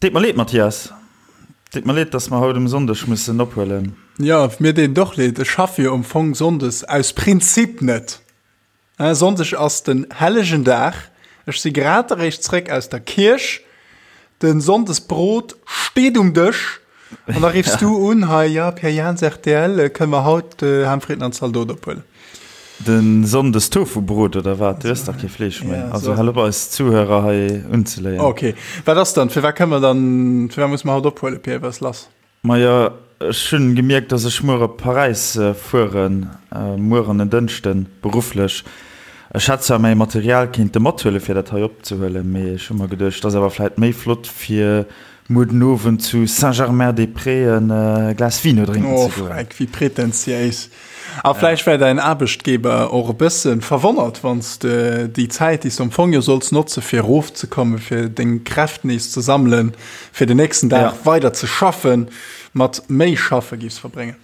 Deet mer leed, Mathias. Deet mer leed, dass mer haut um Sonndeg mussen ophuelen. Jo, mir deet et och leed. Ech schaffe jo am Fong sonndes aus Prinzip net. Sonndeg ass den hellegen Dag. Ech si grad eréischt zréck aus der Kierch. De Sonndesbrot steet um Dësch. An da riffs du un, hei, jo, Pierre Jans, rtl, kënne mer haut Ham, Fritten an Zaldot ophuelen? De Sonndes Tofubrot oder wat? Du ëss dach kee Fleesch méi. Also hal op eis Zuhörer hei unzeléien. Ok, wat ass dann? Firwat kënne mer dann, firwat musse mer haut ophuelen, Pierre? Wat ass lass? Majo, ech hunn gemierkt, dass ech muer op Paräis fueren, muer an en Dënschden, berufflech. Ech hätt zwar mäi Material kéinte mathuelen, fir dat hei opzehuelen, mee ech hu mer geduecht, et ass awer vläit méi flott, fir muer den Owend zu Saint-Germain-des-Prés e Glas Vino drénken ze goen. Oh, Freck, wéi pretentiéis. A vläicht wär däin Aarbechtgeber och e bësse verwonnert, wann s de déi Zäit, déi s de am Fong jo solls notze fir erofzekommen, fir deng Kräft nees ze sammelen, fir den nächsten Dag weider ze schaffen, mat méi schaffe giffs verbréngen.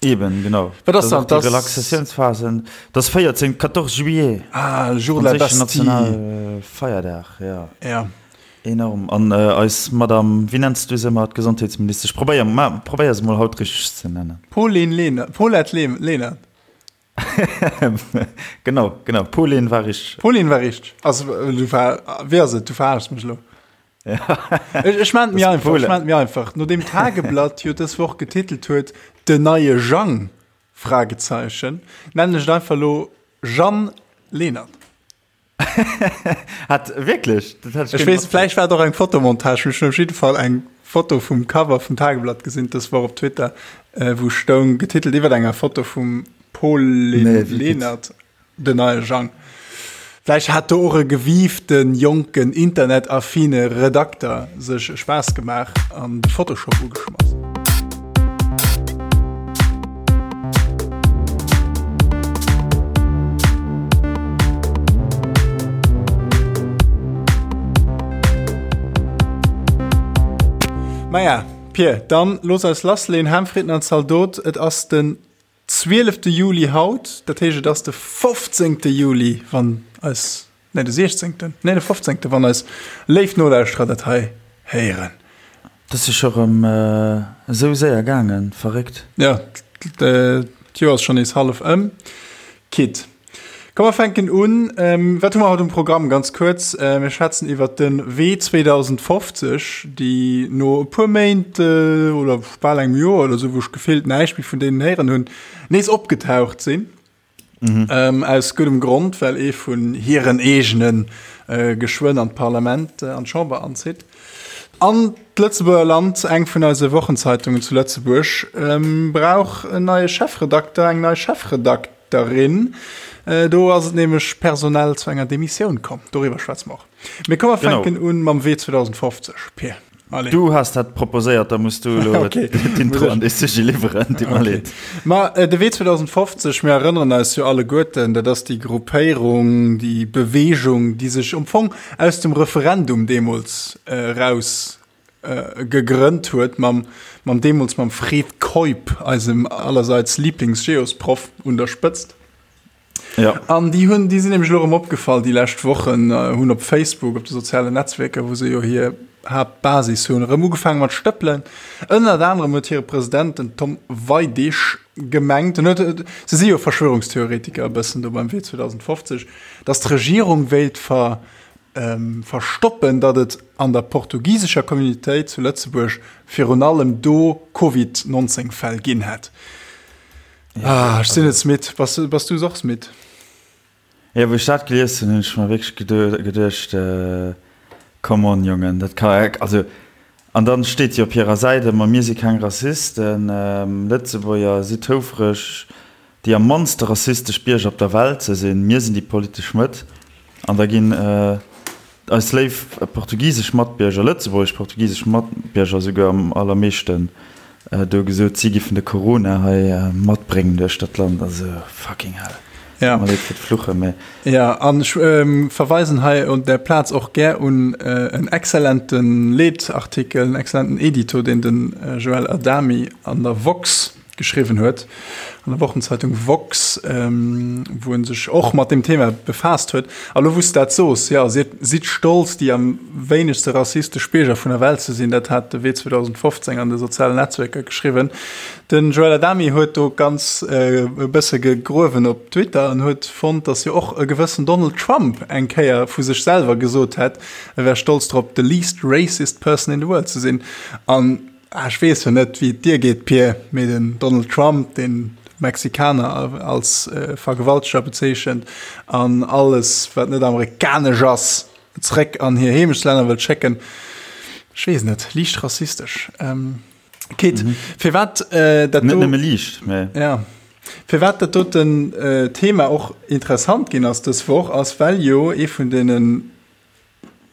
Eben, genau. Wat ass dann? Déi Relaxatiounsphasen, dat ass 14, 14 juillet. Ah, le jour de la Bastille. Nationale Feierdag, ja. Ja. Enorm. An eis Madame, wéi nenns du se ëmmer, d'Gesondheetsministesch? Probéier, ma probéier se mol haut richteg ze nennen. Pauline Lenert, Paulette Lenert. Genau, genau. Pauline war richteg. Pauline war richteg. Also, du ver, wéi ass et? Du verarschs mech elo. Ech, ech maan et mir einfach, ech maan et mir einfach. Nodeem d'Tageblatt jo dës Woch getitelt huet, Den neie Jang? Fragezeichen, nennen ech et einfach elo Jeanne Lenert. Hat wierklech? Dat hat ech weess, vläicht war et och eng Fotomontage, mee ech hunn op jidde Fall eng Foto vum Cover vum Tageblatt gesinn dës Woch op Twitter, wou stoung, getitelt iwwer enger Foto vum Pauline Lenert, Den neie Jang. Vläicht hat do och e gewiiften, jonken, internetaffine Redakter sech e Spaass gemaach an de Photoshop ugeschmass. Maja, Pir, dann looss eis lassleen. Ham, Fritten an Zaldot, et ass den 12. Juli haut, dat heescht et ass de 15. Juli, wann eis, nee de 16., nee de 15., wann eis léif Nolauschterer dat hei héieren. Dat ass jo scho rëm esou séier gaangen, verréckt. Jo, d'Joer ass schonn nees hallef ëm. Quitt. Komm mer fänken un. Wat hu mer haut um Programm? Ganz kuerz, mir schwätzen iwwert de Wee 2050, déi no e puer Méint oder bal engem Joer oder esou, wou ech gefillt näischt méi vun deenen héieren hunn, nees opgetaucht sinn. Aus guddem Grond, well ee vun hiren eegene geschwënn an d'Parlament, an d'Chamber anzitt. An d'Lëtzebuerger Land, eng vun eise Wochenzeitungen zu Lëtzebuerg, brauch en neie Chefredakter, eng nei Chefredakterin. Derin. Do ass et nämlech personell zu enger Demissioun komm. Doriwwer schwätze mer och. Mee komm, mer fänken un mam Wee 2050, Pir. Allez. Du has dat proposéiert, da muss du elo d'Intro an dee Sujet liwweren. Deet mer leed. Ma de Wee 2050, mir erënneren eis jo alleguerten, dat ass déi Gruppéierung, déi Beweegung, déi sech am Fong aus dem Referendum deemools eraus gegrënnt huet, mam, mam deemools mam Fred Keup, eisem allerseits Lieblingsgeosproff, un der Spëtzt. Ja. An déi hunn, déi sinn nämlech elo erëm opgefall déi lescht Wochen, hunn op Facebook, op de sozialen Netzwierker, wou se jo hir Haaptbasis hunn, erëm ugefaange mat stëppelen. Ënnert anerem huet hire President, den Tom Weidig, gemengt, en huet, se si jo Verschwörungstheoretiker e bëssen do beim Wee 2050, datt d'Regierung wéilt ver, verstoppen, datt et an der portugisescher Communautéit zu Lëtzebuerg virun allem do Covid 19 Fäll ginn hätt. Ah, ech sinn et midd. Bass, bass du och midd? Jo, wou ech dat gelies hunn, hunn ech mer wierklech geduecht, Come on, Jongen, dat ka, also, an dann steet jo op hirer Säit ëmmer, mir si keng Rassisten, Lëtzebuerger sidd houfreg, déi am mannste rassistesch Bierger op der Welt ze sinn, mir sinn déi politesch Mëtt, an da ginn eis léif portugisesch Matbierger, lëtzebuergesch-portugisesch Matbierger esouguer am allermeeschten do gesot, si giffen de Corona hei matbréngen duerch dat Land. Also fucking hell. Ja. Tut mer leed fir d'Fluchen, mä. Ja, an ech verweisen hei un där Plaz och gär un en exzellente Leetartikel, en exzellenten Edito, deen de Joël Adami an der woxx. geschriwwen huet an der Wochenzeitung Woxx, wou en sech och mat deem Thema befaasst huet. A lo wou s de dat soos, jo, sidd, sidd stolz déi am wéinegste rassistesch Bierger vun der Welt ze sinn, dat hat de Wee 2015 an de sozialen Netzwierker geschriwwen. Den Joël Adami huet do ganz e bësse gegruewen op Twitter an huet fonnt, datt jo och e gewëssen Donald Trump eng Kéier vu sech selwer gesot hätt, e wär stolz drop, the least racist person in the world ze sinn. An ech weess jo net, wéi et dir geet, Pir, mee den Donald Trump, deen Mexikaner als Vergewalteger bezeechent an alles, wat net amerikanesch ass, zeréck an hir Heemechtslänner wëllt schécken, ech weess net, liicht rassistesch. Kit, firwat dat do. Net nëmme liicht, mä. Ja. Firwat dat doten Thema och interessant ginn ass dës Woch, ass well jo ee vun deenen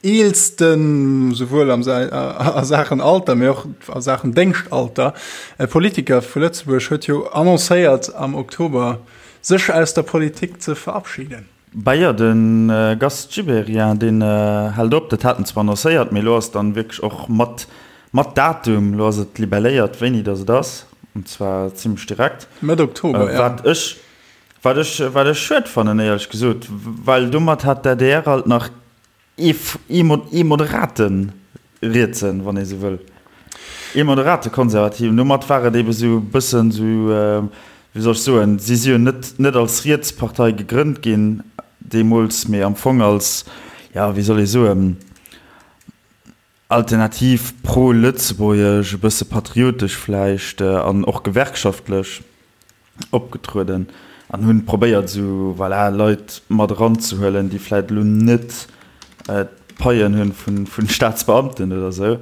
eelsten, souwuel am a Saachen Alter, mee och a Saachen Déngschtalter, Politiker vu Lëtzebuerg huet jo annoncéiert am Oktober sech aus der Politik ze verabschieden. Bah jo, de Gast Gibéryen, deen hält op. Dat hat en zwar annoncéiert, mee elo ass dann wierklech och mat mat Datum, elo ass et libelléiert, wéini datt et ass, an zwar zimlech direkt. Mëtt Oktober, jo. Wat ech Wat ech, wat ech schued fannen, éierlech gesot, well domat hat d'ADR alt nach ee, ee moderate Rietsen, wann ee sou wëll, ee moderate Konservativen. Domat war et ebe sou e bëssen sou, wéi soll ech soen, si si jo net, net als Rietspartei gegrënnt ginn deemools, mee am Fong als, jo, wéi soll ee soen, alternativ pro-lëtzebuergesch, e bësse patriotesch vläicht an och gewerkschaftlech opgetrueden an hunn probéiert esou, voilà, Leit mat eranzehuelen, déi vläicht elo net d'Paien hunn vun Staatsbeamten oder esou.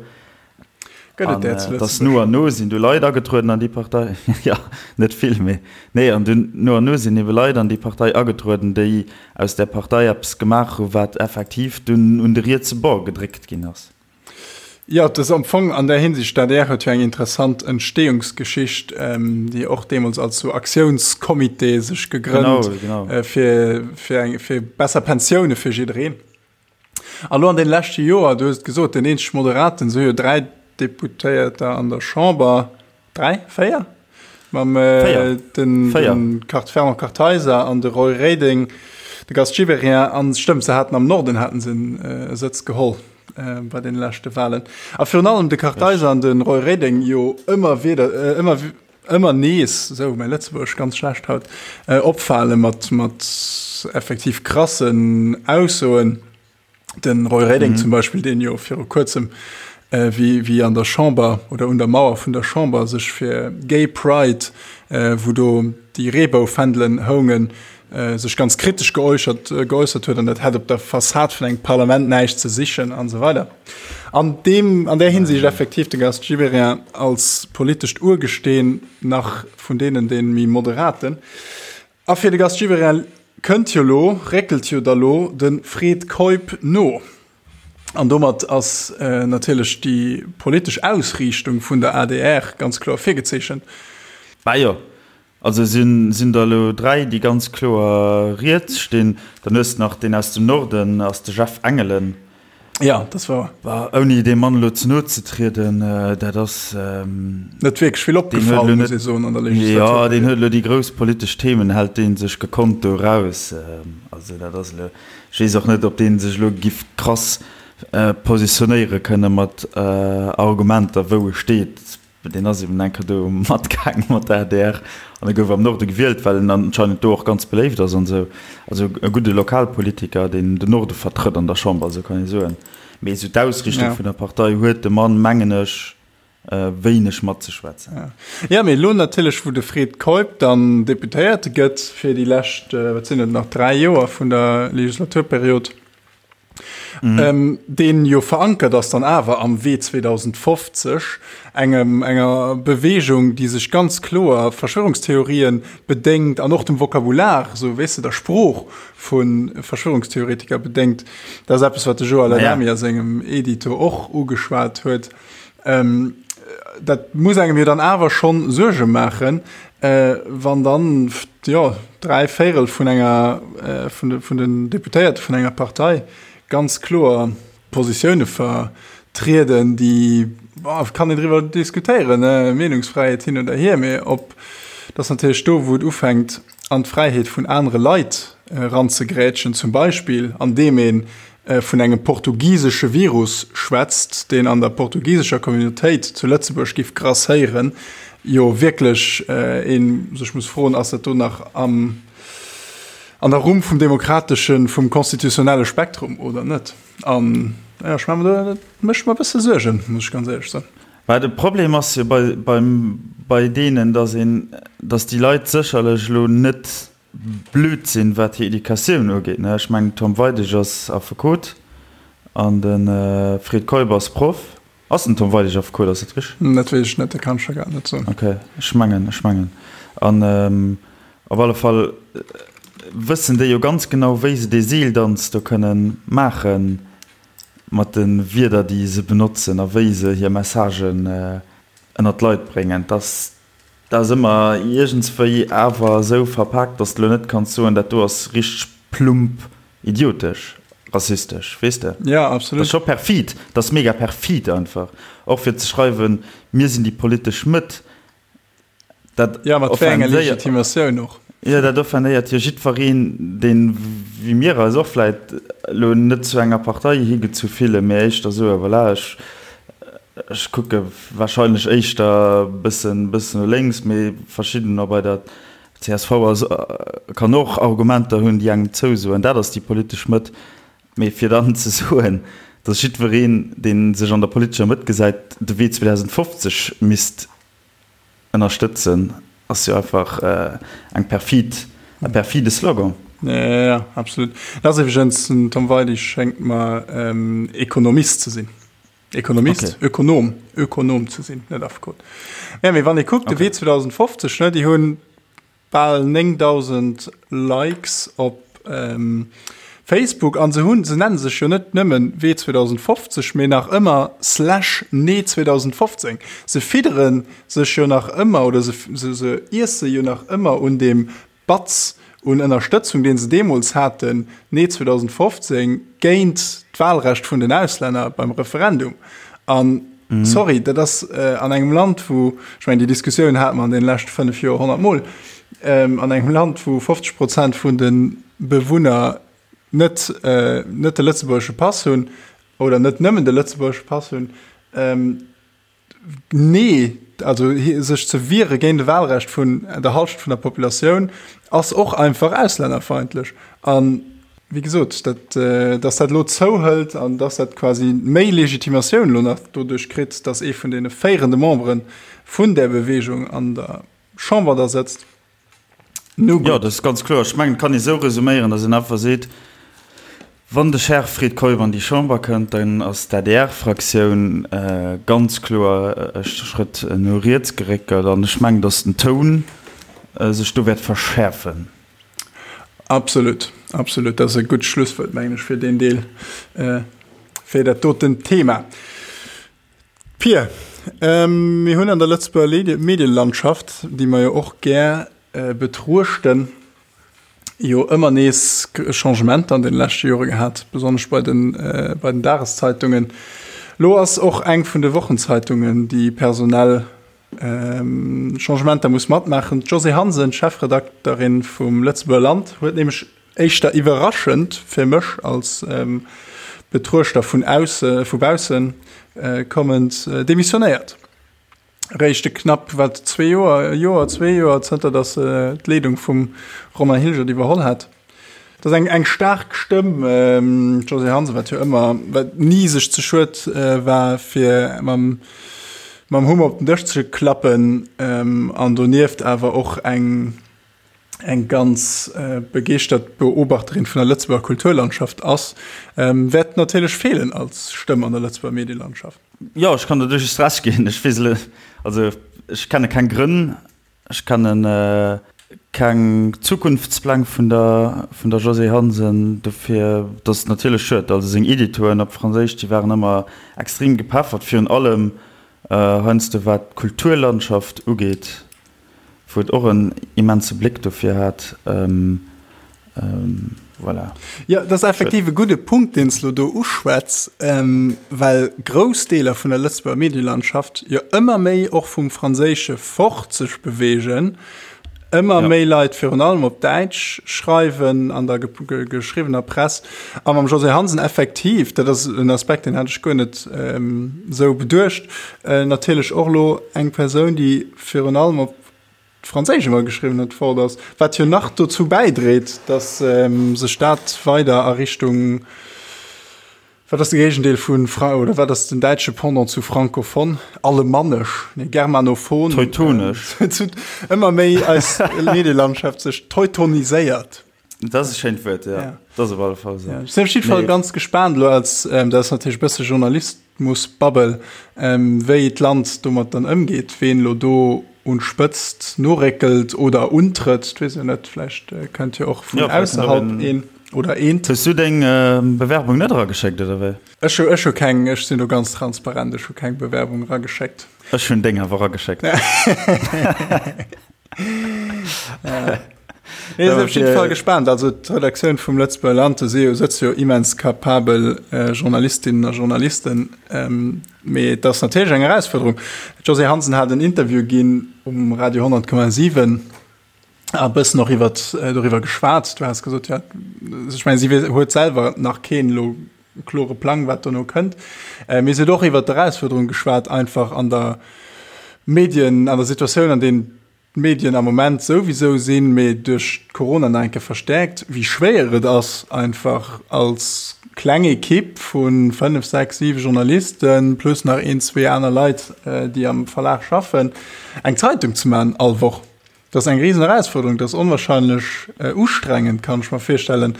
Gëtt et där zu Lëtzebuerg? Dass no an no sinn du Leit agetrueden an déi Partei, jo, net vill, mee nee, an dunn no an no sinn ebe Leit an déi Partei agetrueden, déi aus där Partei eppes gemaach hu wat effektiv dunn un de rietse Bord gedréckt ginn ass. Jo, et ass am Fong an där Hinsicht, d'ADR huet jo eng interessant Entstehungsgeschicht, déi och deemools als sou Aktiounscomité sech gegrënnt, fir, fir eng, fir besser Pensioune fir jiddereen. A lo an deene leschte Joer, du hues et gesot, deen eenzeg Moderaten, se hu jo 3 Deputéierter an der Chamber, 3, 4? Mam den Fernand Kartheiser an de Roy Reding, de Gast Gibéryen an, stëmmt, se haten am Norden haten se e Sëtz geholl bei deene leschte Wahlen. A virun allem de Kartheiser an de Roy Reding jo ëmmer wieder, ëmmer ëmmer nees, esou mäi Lëtzebuergesch ganz schlecht haut, opfale mat mat effektiv krassen Aussoen. Den Roy Reding zum Beispill, deen jo viru kuerzem wéi wéi an der Chamber oder un der Mauer vun der Chamber sech fir Gay Pride, wou do déi Reeboufändelen houngen, sech ganz kritesch geäuchert geäussert huet an dat hätt op der Fassad vun engem Parlament näischt ze sichen an esou weider. An deem an där Hinsicht effektiv de Gast Gibéryen als politescht Urgesteen nach vun deenen dee méi moderaten. A fir de Gast Gibéryen kënnt jo lo, réckelt jo da lo de Fred Keup no. An domat ass natierlech déi politesch Ausriichtung vun der adr ganz kloer virgezeechent. Bah jo, Also sinn der elo 3, déi ganz kloer riets stinn. Dann hues de nach deen aus dem Norden, ass de Jeff Engelen. Ja, dat ass wouer. Bah, ouni deem Mann elo ze no ze trieden, dat ass. Net wierklech vill opgefall, muss ee soen, an der Legislaturperiod. Jo, deen huet elo déi grouss politesch Themen, hält dee sech gekonnt do eraus. Also dat ass elo, ech weess och net, ob dee sech elo giff krass positionéiere kënne mat Argumenter, wou e steet. Deen ass eben eng Kéier do matgaange mat der adr an e gouf am Norde gewielt, well en anscheinend do och ganz beléift ass an esou. Also e gudde Lokalpolitiker, deen den Norde vertrëtt an der Chamber, esou kann ee soen. Mee esou d'Ausrichtung vun der Partei huet de Mann, mengen ech, wéineg matzeschwätzen. Jo, mee elo natierlech, wou de Fred Keup dann Deputéierte gëtt fir déi lescht, wat sinn et nach, 3 Joer vun der Legislaturperiod, Mhm. Deen jo verankert ass dann awer am Wee 2050, engem, enger Bewegung, déi sech ganz kloer Verschwörungstheorien bedéngt an och dem Vokabular, sou weess de, der Sprooch vu Verschwörungstheoretiker bedéngt. Dat ass eppes, wat de Joël Adami a sengem Edito och ugeschwat huet. Ähm, dat muss engem jo dann awer schonn Suerge maachen, äh, wann dann jo, 3 Véirel vun enger äh, vun, de, vun den Deputéierte vun enger Partei ganz kloer Positioune vertrieden, déi. kann een driwwer diskutéieren, Meenungsfräiheet hin oder hier, mee ob, dat ass natierlech do, wou et ufänkt, an d'Fräiheet vun anere Leit eranzegrätschen, zum Beispill andeem ee vun engem portugisesche Virus schwätzt, deen an der portugisescher Communautéit zu Lëtzebuerg giff grasséieren, jo wierklech ee sech muss froen, ass dat do nach am, an der Rumm vum demokrateschen, vum constitutionnelle Spektrum oder net? An jo, ech maache mer do, dat mécht mer e bësse Suergen, muss ech ganz éierlech soen. Mä de Problem ass jo bei, beim, bei deenen, datt een, datt déi Leit sécherlech elo net blöd sinn, wat hir Educatioun ugeet. Ech mengen, den Tom Weidig ass Affekot an de Fred Keup ass Proff. Ass den Tom Weidig Affekot, ass dat richteg? Dat weess ech net, dat kann ech der grad net soen. Ok, ech mengen, ech mengen. An op alle Fall wëssen déi jo ganz genau, wéi se dee Seeldanz do kënnen maachen mat de Wierder, déi se benotzen a wéi se hir Messagen ënnert d'Leit bréngen. Dass Dat ass ëmmer iergendswéi awer esou verpaakt, dass de lo net kanns soen, dat do ass richteg plump idiotesch, rassistesch, weess de? Ja, absolut. Dat ass scho perfid, dat ass mega perfid einfach. Och fir ze schreiwen, mir sinn déi politesch Mëtt, dat Ja, mat wéi enger Legitimatioun och? Jo, dat offendéiert jo jiddwereen, deen, wéi mir eis och vläit elo net zu enger Partei higezu fillen, mee éischter soe, voilà, ech, ech kucke warscheinlech éischter e bëssen, bëssen no lénks, mee verschiddener bei der csv ass, kann och Argumenter hunn, déi engem zousoen, dat ass déi politesch Mëtt. Mee fir dann ze soen, datt jiddwereen, dee sech an der politescher Mëtt gesäit, de Wee 2050 misst ënnerstëtzen, ass jo einfach eng perfid, e perfide Slogan. Jo, jo, absolut. Dat ass iwwregens, den Tom Weidig schéngt mer Ekonomist ze sinn. Ekonomist, okay. Ökonom, Ökonom ze sinn, net Affekot. Ja, mee wann ee kuckt, de Wee 2050, ne, déi hunn bal 9.000 Likes op ähm, Facebook an se hunn, se nennen sech jo net nëmmen Wee 2050, mee nach ëmmer slash Nee 2015. Se fiddere sech jo nach ëmmer oder se, se, se iesse jo nach ëmmer un deem Batz un Ënnerstëtzung, deen se deemools haten, Nee 2015, géint d'Wahlrecht vun den Auslänner beim Referendum. An sorry, dat ass an engem Land, wou, ech mengen, déi Diskussioun hate mer an deene leschte fënnef Joer honnertmol, an engem Land, wou 50 Prozent vun de Bewunner net, net de lëtzebuergesche Pass hunn oder net nëmmen de lëtzebuergesche Pass hunn, Nee, also sech ze wiere géint e Wahlrecht vun der Halschent vun der Populatioun ass och einfach auslännerfeindlech. An wéi gesot, dat, dass dat elo zouhëlt an dass dat quasi méi Legitimatioun elo nach doduerch kritt, dass ee vun deene féierende Membere vun där Bewegung an der Chamber da sëtzt, Nu gutt. Jo, dat ass ganz kloer. Ech mengen, et kann ee sou resuméieren, datt een einfach seet, Wann de Cher Fred Keup an déi Chamber kënnt, dann ass d'ADR-Fraktioun ganz kloer e Schrëtt no riets geréckelt. An ech mengen, datt den Toun sech do wäert verschäerfen. Absolut, absolut. Dat ass e gutt Schlusswuert, mengen ech, fir deen Deel, fir dat doten Thema. Pir, mir hunn an der Lëtzebuerger Medielandschaft, déi mer jo och gär betruechten, jo ëmmer nees Changementer an deene leschte Jore gehat, besonnesch bei den, bei den Dageszeitungen. Elo ass och eng vun de Wochenzeitungen, déi personell Changementer muss matmaachen. D'Josée Hansen, Chefredakterin vum Lëtzebuerger Land, huet nämlech Éischter iwwerraschend fir mech als Betruechter vun ausse, vu baussen kommend, demissionéiert. Réischt e knapp, wat, zwee Joer, e Joer, zwee Joer zënter datt se d'Leedung vum Romain Hilgert iwwerholl hat. Dat ass eng, eng staark Stëmm, d'Josée Hansen, wat jo ëmmer, wat ni sech ze schued war fir mam, mam Hummer op den Dësch ze klappen, an donieft awer och eng, eng ganz begeeschtert Beobachterin vun der Lëtzebuerger Kulturlandschaft ass, wäert natierlech feelen als Stëmm an der Lëtzebuerger Medielandschaft. Jo, ech kann der duerchaus Recht ginn. Ech weess elo, also ech kenne keng Grënn, ech kenne keng Zukunftspläng vun der vun der Josée Hansen. Dofir, dat ass natierlech schued. Also seng Editoen op Franséisch, déi waren ëmmer extrem gepeffert, virun allem heiansdo wat d'Kulturlandschaft ugeet. Wou et och en immense Bléck dofir hat. Voilà. Jo, dat ass effektiv e gudde Punkt, deen s de elo do uschwätz, well grouss Deeler vun der Lëtzebuerger Medielandschaft jo ëmmer méi och vum Franséische fort sech beweegen, ëmmer méi Leit virun allem op Däitsch schreiwen an der geschriwwener Press. A mam Josée Hansen effektiv, dat ass en Aspekt, deen hat ech guer net esou beduecht, natierlech och elo eng Persoun, déi virun allem op Franséisch ëmmer geschriwwen huet, fort ass, wat jo nach dozou bäidréit, datt sech dat weider a Richtung, wat ass de Géigendeel vu Fra oder wat ass den däitsche Pendant zu francophone, alemannesch, nee, germanophon, Teutonesch, ëmmer méi eis Medielandschaft sech teutoniséiert. Dat ass e schéint Wuert, ja. ja. Dat ass op alle Fall esou. Ja. Ech sinn op jidde Fall ganz gespaant elo als, ähm, dat ass natierlech e bësse Journalismusbubble, ähm, wéi d'Land domat dann ëmgeet, ween elo do un d'Spëtzt noréckelt oder untrëtt, dat weess ech net, vläicht äh, kënnt jo och vun ja, ausserhalb een oder eent. Hues du deng äh, Bewerbung net erageschéckt, oder wéi? Ech hu, ech hu keng, ech sinn do ganz transparent, ech hu keng Bewerbung erageschéckt. Ech hunn deng awer erageschéckt. Ja. Nee, sinn op jidde Fall gespaant. Also d'Redaktioun vum Lëtzebuerger Land, do si jo, sëtze jo immens kapabel äh, Journalistinnen a Journalisten. Ähm, mee et ass natierlech eng Erausfuerderung. D'Josée Hansen hat en Interview ginn um Radio 100,7 a bëssen och iwwer äh, doriwwer geschwat. Du has gesot, ja, ech meng, si huet selwer nach keen elo klore Plang, wat dono kënnt. Äh, mee si huet och iwwer d'Erausfuerderung geschwat, einfach an der Medien, an der Situatioun, an deenen d'Medien am Moment souwisou sinn, mee duerch d'Corona nach eng Kéier verstäerkt, wéi schwéier et ass, einfach als kleng Ekipp vu 5, 6, 7 Journalisten plus nach een, zwee aner Leit, déi am Verlag schaffen, eng Zeitung ze maachen all Woch. Dat ass eng risen Erausfuerderung, dat ass onwahrscheinlech ustrengend, kann ech mer virstellen.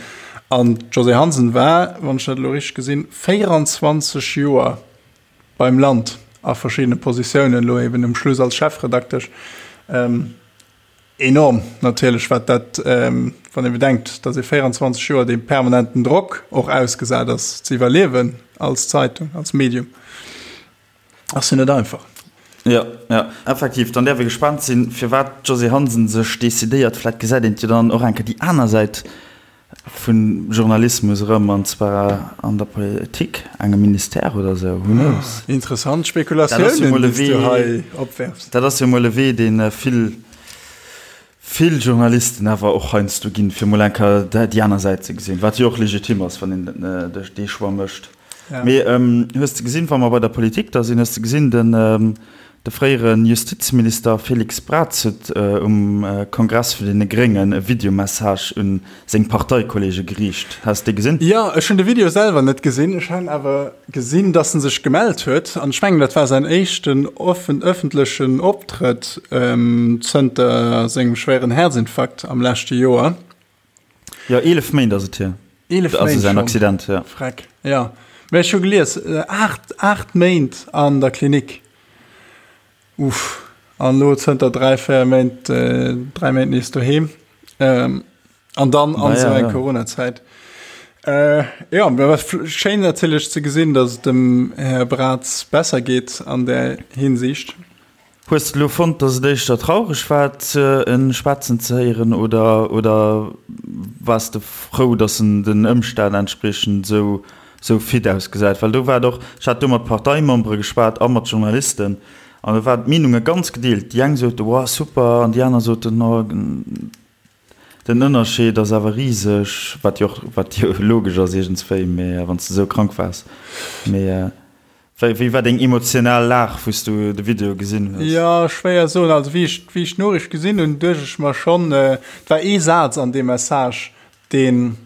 An d'Josée Hansen war, wann ech dat elo richteg gesinn, 24 Joer beim Land a verschiddene Positiounen, elo eben um Schluss als Chefredaktesch. Enorm natierlech, wat dat, wann ee bedenkt, datt ee 24 Joer deem permanenten Drock och ausgesat ass, ze iwwerliewen als Zeitung, als Medium, ass jo net einfach. Jo, jo, effektiv. Dann däerf ee gespaant sinn, firwat d'Josée Hansen sech decidéiert. Vläicht gesäit een jo dann och eng Kéier déi aner Säit Vun Journalismus erëm, an zwar an der Politik, engem Ministère oder esou, who knows? Interessant Spekulatiounen, déi s du hei opwerfs. Dat ass jo mol e Wee, dee vill, vill Journalisten awer och heiansdo ginn, fir mol eng Kéier déi aner Säit ze gesinn, wat jo och legitim ass, wann een dee Choix mécht. Mee hues de gesinn, wa mer bei der Politik da sinn, hues de gesinn, den De fréiere Justizminister Félix Braz huet um Kongress vun deene Gréngen e Videomessage un seng Parteikolleege geriicht. Has de dee gesinn? Jo, ech hunn de Video selwer net gesinn. Ech han awer gesinn, dass en sech gemellt huet. An ech mengen, dat war säin éischten ëffentlechen Optrëtt zënter sengem schwéieren Häerzinfarkt am leschte Joer. Jo, 11 Méint ass et hier. 11 Méint Also säin Accident, ja. Freck, ja. Mä ech hu gelies, 8, 8 Méint an der Klinik. Uff. An elo zënter 3, 4 Méint, 3 Méint nees doheem. An dann an esou eng Coronazäit. Jo, mä wat schéin natierlech ze gesinn, datt et dem Här Braz besser geet an där Hinsicht. Hues de lo fonnt, dass et éischter traureg war en schwätzen ze héieren oder oder waars de frou, dass en den Ëmstänn entspriechend esou esou fit ausgesäit? Well do war et och, ech hat do mat Parteimembere geschwat a mat Journalisten an do waren d'Meenunge ganz gedeelt. Déi eng sote wow super an déi aner soten oh den Ënnerscheed ass awer riseg, wat jo och wat jo logesch ass iergendswéi, mee wann s de esou krank waars. Mee Wéi war deng emotional Lag, wou s du de Video gesinn hues? Jo, schwéier soen. Also wéi ech, wéi ech d'Noriicht gesinn hunn, duecht ech mer schonn, et war ee Saz an deem Message, deen,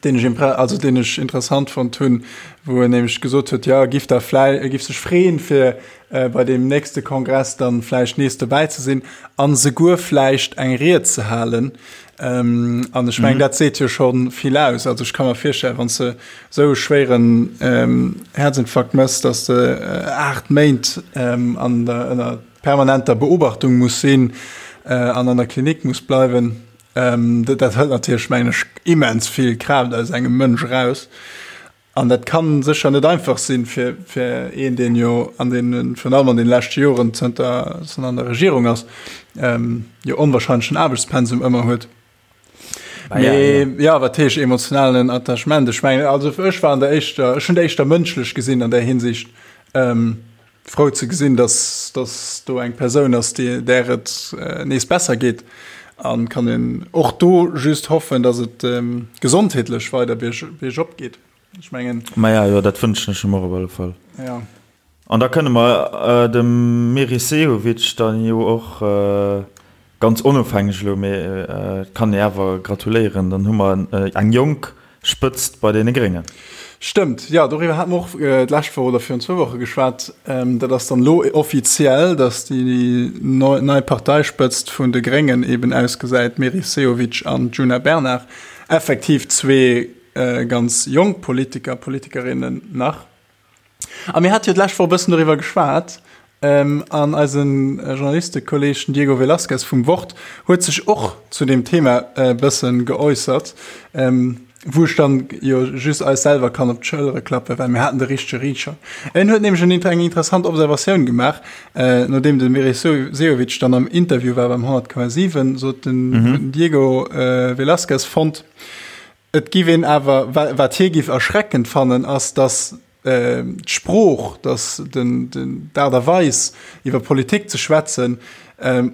deen ech impre-, also deen ech interessant fonnt hunn, wou en nämlech gesot huet, jo, e giff da vläi-, e giff sech freeën, fir bei deem nächste Kongress dann vläicht nees dobäi ze sinn an souguer vläicht eng Ried ze halen. An ech mengen, dat seet jo scho vill aus. Also ech ka mer virstellen, wann s de esou e schwéieren Häerzinfarkt méchs, datt s de 8 Méint an der, ënner permanenter Beobachtung muss sinn an an der Klinik muss bleiwen, dat hëlt natierlech, mengen ech, immens vill Kraaft aus engem Mënsch eraus. An dat ka sécher net einfach sinn fir fir een, deen jo an deenen, virun allem an deene leschte Joren, zënter en an der Regierung ass, jo onwahrscheinlechen Aarbechtspensum ëmmer huet. Mee ja, wat heescht emotionalen Attachement? Ech mengen, also ech war an der éischter, ech hunn et éischter mënschlech gesinn an där Hinsicht, frou ze gesinn, dass, dass do eng Persoun ass, déi, där et nees besser geet. An kann een och do just hoffen, dass et gesondheetlech weider bierg, biergop geet. Ech mengen. Maja, jo, dat wënschen ech em och op alle Fall. Ja. An da kënne mer dem Meris Sehovic dann jo och, ganz onofhängeg elo, mee et kann ee awer gratuléieren, dann hu mer eng jonk Spëtzt bei deene Gréngen. Stëmmt, jo, doriwwer hate mer och d'lescht Woch oder virun zwou Woche geschwat. Dat ass dann elo offiziell, datt déi nei Parteispëtzt vun de Gréngen eben ausgesäit, Meris Sehovic an Djuna Bernard. Effektiv zwee ganz jonk Politiker, Politikerinnen nach. A mir hate jo d'lescht Woch e bëssen doriwwer geschwat, an eise Journalistekolleeg, den Diego Velazquez vum Wort, huet sech och zu deem Thema e bësse geäussert, wou ech dann jo just eis selwer kann op d'Schëllere klappen, well mir haten de richtege Riicher. En huet nämlech eng interessant Observatioun gemaach, nodeem de Meris Sehovic dann am Interview war beim 100,7, sot den Diego Velazquez fonnt, Et giff een awer, wat hie giff erschreckend fannen, ass, datt d'Sprooch, datt d'Aart a Weis iwwer Politik ze schwätzen,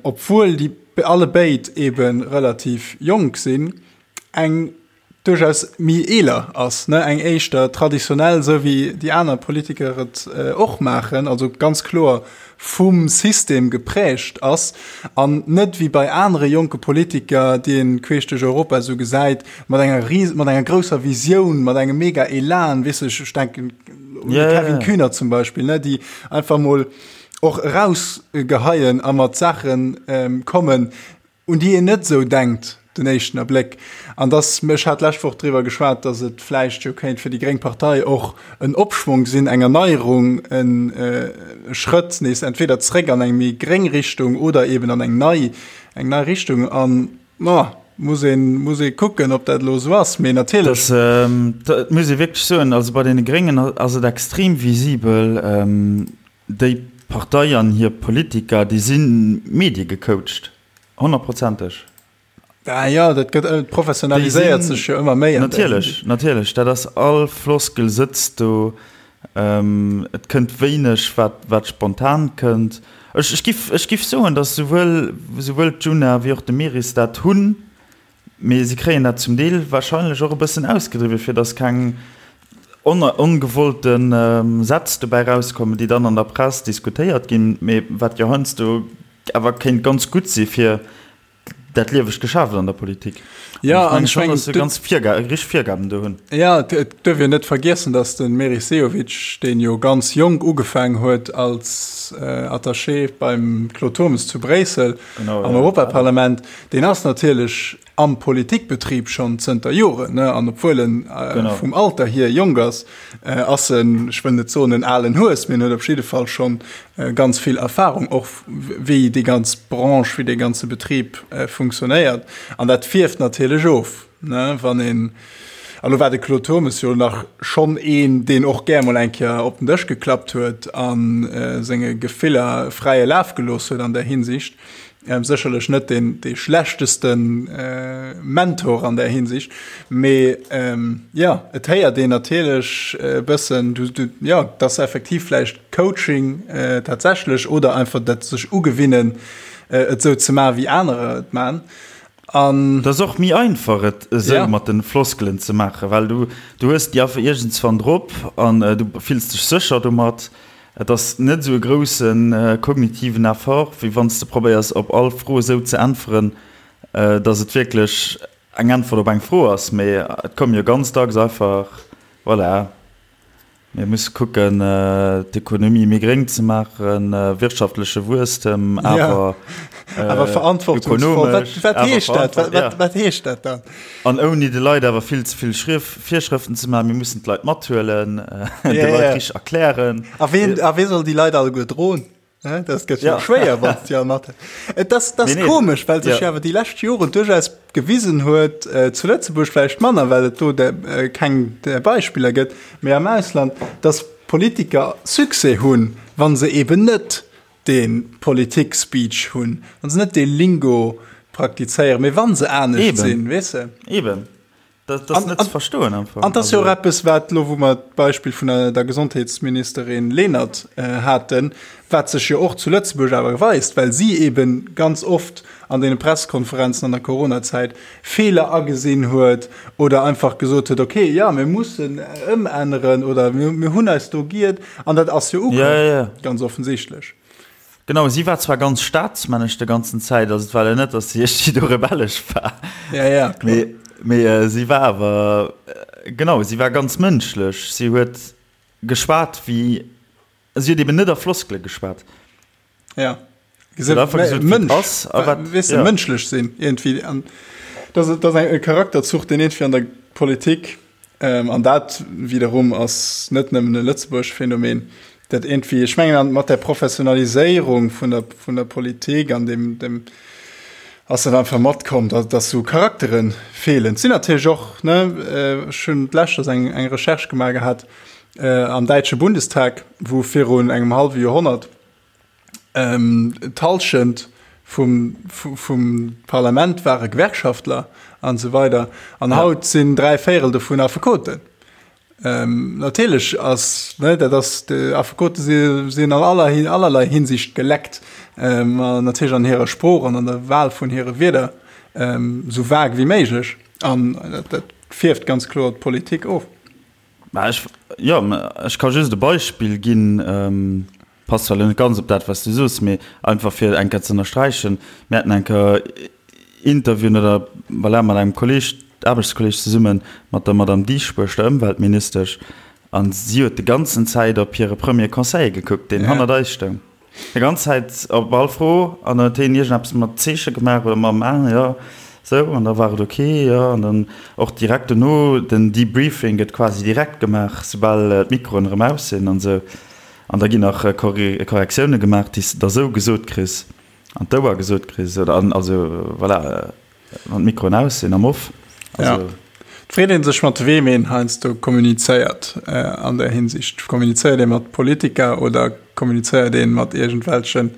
obwuel déi allebéid ebe relativ jonk sinn, eng duerchaus méi eeler ass, eng éischter traditionell, esou wéi déi aner Politiker et och maachen, also ganz kloer vum System geprägt ass an net wéi bei anere jonke Politiker, déi een queesch duerch Europa esou gesäit, mat enger ries mat enger grousser Visioun, mat engem mega Elan, weess ech, ech denken un de Kevin Kühnert zum Beispill, ne, déi einfach mol och erausgeheien a mat Saachen kommen, un déi een net esou denkt den éischten Erbléck. An dass, ech hat d'lescht Woch driwwer geschwat, dass et vläicht jo kéint fir déi gréng Partei och en Opschwong sinn, eng Erneierung, e Schrëtt nees entweder zréck an eng méi gréng Richtung oder eben an eng nei, eng nei Richtung. An, ma, muss een, muss ee kucken, ob dat elo esou ass. Mee natierlech. Dat muss ee wierklech soen, also bei deene Gréngen ass et extrem visibel, déi Partei an hir Politiker, déi si mediegecoacht, honnertprozenteg. Ah jo, dat gëtt, et professionaliséiert sech jo ëmmer méi. Natierlech, natierlech, dat ass, all Floskel sëtzt do, et kënnt wéineg wat, wat spontan kënnt. Ech, ech giff, ech giff soen, datt souwuel, souwuel d'Djuna wéi och de Meris dat hunn. Mee se kréien dat zum Deel wahrscheinlech och e bëssen ausgedriwwen, fir datt keng ongewollte Sätz dobäi rauskommen, déi dann an der Press diskutéiert ginn, mee wat jo heiansdo awer kéint ganz gutt si fir dat liewegt Geschäft an der Politik. Jo, an ech mengen, datt se ganz richteg Virgaben do hunn. Jo, et duerf een net vergiessen, datt de Meris Sehovic, deen jo ganz jonk ugefaang huet als Attaché beim Claude Turmes zu Bréissel am Europaparlament, Deen ass natierlech am Politikbetrib schonn zënter Joren, ne? An obwuel en vum Alter hier jonk ass, ass en, ech wëll net soen en alen Hues, mee en huet op jidde Fall schonn ganz vill Erfahrung, och wéi déi ganz Branche, wéi dee ganze Betrib funktionéiert. An dat fierft natierlech of, ne, wann een, a lo war de Claude Turmes jo nach schonn een, deen och gär mol eng Kéier op den Dësch geklappt huet a senge Gefiller fräie Laf gelooss huet an där Hinsicht. Sécherlech net deen dee schlechteste Mentor an där Hinsicht, mee jo, et héiert een natierlech e bëssen, du, du, jo, dass effektiv vläicht Coaching tatsächlech oder einfach dat sech ugewinnen, et esou ze maachen, wéi anerer et maachen. An. Et ass och méi einfach, et esou mat de Floskelen ze maachen, well du, du hues déi einfach iergendswann drop an du fills dech sécher domat. Et ass net esou e grousse kognitiven Effort, wéi wann s de probéiers op all Fro esou ze äntweren, datt et wierklech eng Äntwert op eng Fro ass. Mee et komme jo ganz dacks einfach, voilà, mir musse kucken, d'Ekonomie méi gréng ze maachen, wirtschaftleche Wuesstem, awer ökonomesch. Wat heescht dat? Wat heescht dat dann? An ouni de Leit awer vill ze vill Virschrëften ze maachen, mir mussen d'Leit mathuelen, de Leit richteg erklären. A ween, a wee soll déi Leit alleguer droen? Dat gëtt jo schwéier, wann s de all mat. Et ass, dat ass komesch, well sech jo awer déi lescht Joren duerchaus gewisen huet, zu Lëtzebuerg vläicht manner, well et do keng Beispiller gëtt, mee am Ausland, datt Politiker Succès hunn, wa se eben net dee Politik-Speech hunn, wa se net dee Lingo. praktizéieren, mee wa se anescht sinn, weess de. Eben. Dat ass net ze verstoen am Fong. An dat ass jo och eppes, wat elo, wou mer d'Beispill vun der Gesondheetsministerin Lenert haten, wat sech jo och zu Lëtzebuerg awer weist, well si eebe ganz oft an deene Pressekonferenzen an der Coronazäit Feeler agesinn huet oder einfach gesot huet, okay, jo, mir mussen ëmänneren oder mir hunn eis do giert. An dat ass jo ukomm, ganz offensichtlech. Genau, si war zwar ganz staatsmännesch de ganzen Zäit, also et war jo net, datt si iergendwéi do rebellesch war. Ja, ja, kloer. Mee, mee si war awer, genau, si war ganz mënschlech. Si huet geschwat wéi, si huet eben net a Floskele geschwat. Ja. Si huet einfach gesot, wéi et ass a wat, weess de, mënschlech sinn iergendwéi. An dat ass, dat ass e Charakterzuch, deen iergendwéi an der Politik An dat wiederum ass net nëmmen e Lëtzebuerg Phänomen, dat iergendwéi, ech mengen mat der Professionaliséierung vun der, vun der Politik an dem, dem ass dat einfach matkomm, datt, datt esou Charaktere feelen. Et sinn natierlech och, ne, ech hunn d'lescht eng, eng Recherche gemaach gehat am däitsche Bundestag, wou virun engem hallwe Joerhonnert, D'Hallschent vum, vum Parlament ware Gewerkschaftler an esou weider. An haut sinn 3 Véierel dovun Affekoten. Natierlech ass, ne, dat ass, Affekote si, sinn an aller, allerlei Hinsicht geleckt, an natierlech an hirer Sprooch an an der Wahl vun hire Wierder esou vag wéi méiglech. An dat, dat fierft ganz kloer d'Politik of. Mä ech, jo, ech ka just e Beispill ginn. Passt zwar elo net ganz op dat, wat s du soos, mee einfach fir eng Kéier ze ënnersträichen, Mir haten eng Kéier Interviewen oder voilà, mat engem Kolleeg, Aarbechtskolleeg zesummen, mat der Madame Dieschbourg, der Ëmweltministesch, a si huet de ganzen Zäit op hire Premier Conseiller gekuckt, deen hannert eis stoung, déi ganz Zäit op all Fro, an dann huet hien iergendeppes mat Zeeche gemaach oder mam Aen, jo, sou, an da war et ok, jo, an dann och direkt dono, den Debriefing gëtt quasi direkt gemaach, soubal d'Mikroen erëm aus sinn an esou. An da ginn nach Korrektioune gemaach, déi s de da sou gesot kriss, an d'Ouer gesot kriss, oder an, also voilà, wann d'Mikroen aus sinn, am Off. Also. Ja. Et freet ee sech, mat weem een heiansdo kommunizéiert an där Hinsicht. Kommunizéiert ee mat Politiker oder kommunizéiert ee mat iergendwelchen.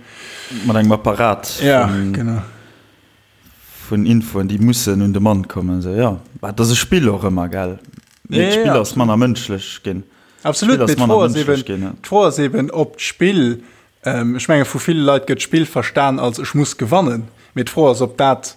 Mat engem Apparat. Ja, genau. Vun Infoen, déi mussen un de Mann kommen. Esou, jo. Bah, et ass e Spill och ëmmer, gell? Mee d'Spill ass manner mënschlech ginn. Absolut, mee d'Fro ass eben, d'Fro ass eben, ob d'Spill, ech menge vu ville Leit gëtt d'Spill verstan als ech muss gewannen, mee d'Fro ass, ob dat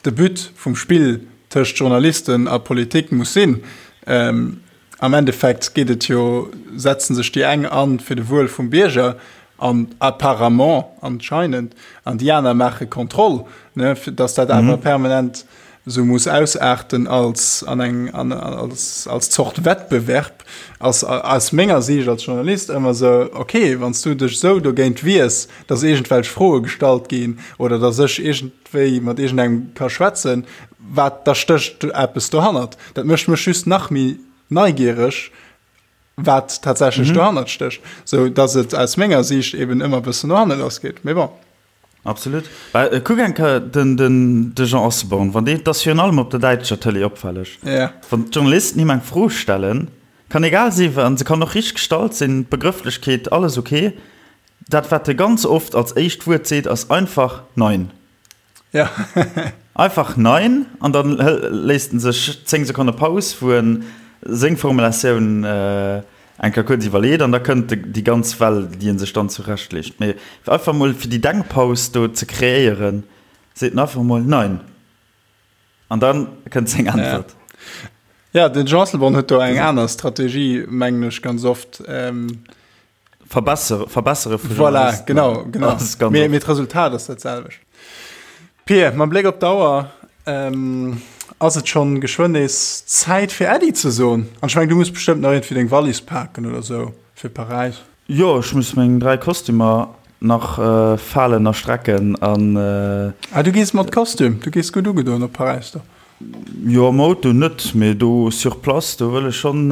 de But vum Spill tëscht Journalisten a Politik muss sinn. Am Endeffekt geet et jo, setzen sech déi eng an fir de Wuel vum Bierger an apparemment, anscheinend, an déi aner maache Kontroll, ne, fir dass dat awer permanent esou muss ausaarten als an eng an als als Zort Wettbewerb, ass aus menger Siicht als Journalist ëmmer esou, okay, wann s du dech esou dogéint wiers, dass iergendwelch Froe gestallt ginn oder dass ech iergendwéi mat iergendengem ka schwätzen, wat, da stécht eppes dohannert. Dat mécht mech just nach méi neigiereg, wat tatsächlech dohannert stécht, sou dass et aus menger Siicht eben ëmmer e bëssen no hanne lass geet. Mee bon. Absolut. Well kuck eng Kéier den, den, de Jean Asselborn, wann deen, 't ass virun allem op der däitscher Tëlee opfälleg, Ja. wann d'Journalisten him eng Fro stellen, kann egal si an se kann och richteg gestallt sinn, d'Begrëfflechkeet, alles ok, dat wat e ganz oft als éischt Wuert seet, ass einfach Nein. Ja. Einfach Nein an dann léisst en sech 10 Sekonne Paus, wou en seng Formulatioun eng Kéier kuerz iwwerleet an da kënnt déi ganz Well, déi en sech dann zurechtleegt. Mee einfach mol fir déi Denkpaus do ze kreéieren, seet en einfach mol Nein an da kënnt seng Äntwert. Ja, den Jean Asselborn huet do eng aner Strategie, mengen ech, ganz oft. Verbessere, verbessere vu Voilà, genau, genau. Mee, mee d'Resultat ass dat selwecht. Pir, mam Bléck op d'Auer ähm, ass et schonn geschwënn nees Zäit fir Äddi ze soen. An ech meng, du muss bestëmmt nach iergendwéi deng Wallis paken oder sou fir Paräis. Jo, ech muss meng 3 Kostümer nach äh, falen a strecken an. Äh, ah, du gees mat Kostüm, du gees gutt ugedoen op Paräis do. Jo, am Auto net, mee do sur place, do wëll ech schonn,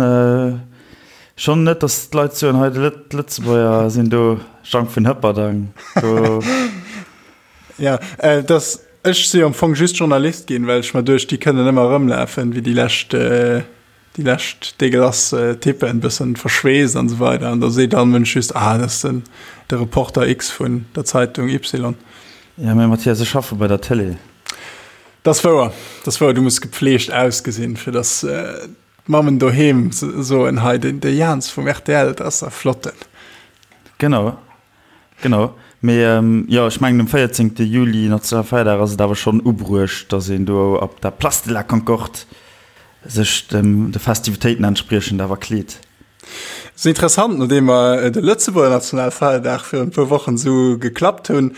schonn net, datt d'Leit soen, hei de d'Lëtzebuerger sinn do, Jang vun Hëpperdang, do. Ja, dass, ech si am Fong just Journalist ginn, well ech mer duecht, déi kënnen ëmmer erëmlafen, wéi déi lescht, déi lescht dégueulasse Typen, bëssen verschweesst an esou weider. An da seet all Mënsch just, ah, dat ass den, de Reporter X vun der Zeitung Y. Ja, mee Mathias, ech schaffe bei der Tëlee. Dat ass wouer, dat ass wouer. Du muss gepfleegt ausgesinn, fir dass d'Mammen doheem soen, hei den de Jans vum rtl, dat ass e flotten. Genau, genau. Mee jo, ech mengen um 14. Juli, Nationalfeierdag, ass et awer schonn ubruecht, dass een do op der Place de la Concorde sech dem de Festivitéiten entspriechend awer kleet. Ass interessant, nodeem mer de Lëtzebuerger Nationalfeierdag virun e puer Wochen esou geklappt hunn,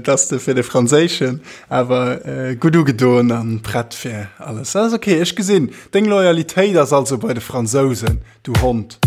dass de fir de franséischen awer gutt ugedoen an prett fir alles. Ass ok, ech gesinn, deng Loyalitéit ass also bei de Fransousen, du Hond.